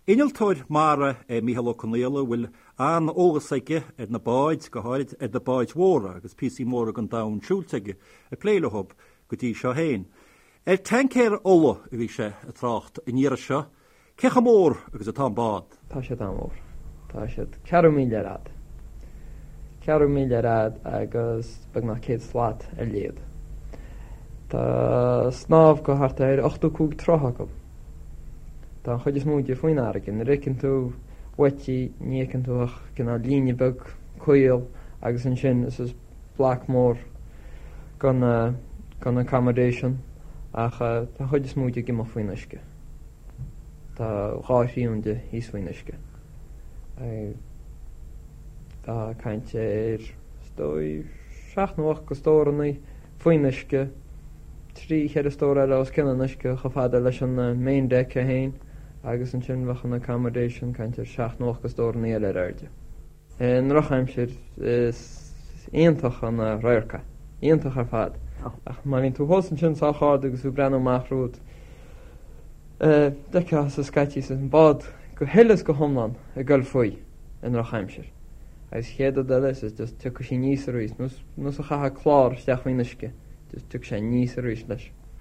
Innealtóir mara é Mícheál Ó Conaola a bhfuil an-eolas aige ar na báid, go háirid ar na báid mhóra, agus píosaí móra den domhan siúilte aige ag plé leo go dtí seo féin. Ar taincéir ola a bhí sé ag trácht an iarraidh seo. Cé chomh mór agus atá an bád? Tá siad an-mhór. Tá siad ceathrú míle ar fhad. Ceathrú míle ar fhad agus beagnach 100 slat ar leithead. Tá snámh go thart ar 85 troigh acu. Tá an chuid is mó de faoin fharraige. Nuair a fheiceann tú uait í, ní fheiceann tú ach cineál líne beag caol agus ansin is is bloc mór den den accommodation ach tá an chuid is mó de ag imeacht faoin uisce. Tá dhá thrian de thíos faoin uisce. Tá caint ar, is dóigh, seacht nó ocht de stórannaí faoin uisce, trí cheithre stór eile os cionn an uisce chomh fada leis an main deck é féin agus ansin bheadh an accommodation, caint ar seacht nó ocht de stórannaí eile ar airde. I ndrochaimsir is iontach an radharc é, iontach ar fad. Ach má bhíonn tú thuas ansin sách ard agus tú ag breathnú amach romhat, d'fheicfeá scaití an bád go huile is go hiomlán ag goil faoi i ndrochaimsir. Agus chéad rud eile is just tiocfaidh sí aníos arís, nós a chaithfeá clár isteach faoin uisce, just tiocfaidh sé aníos arís leis.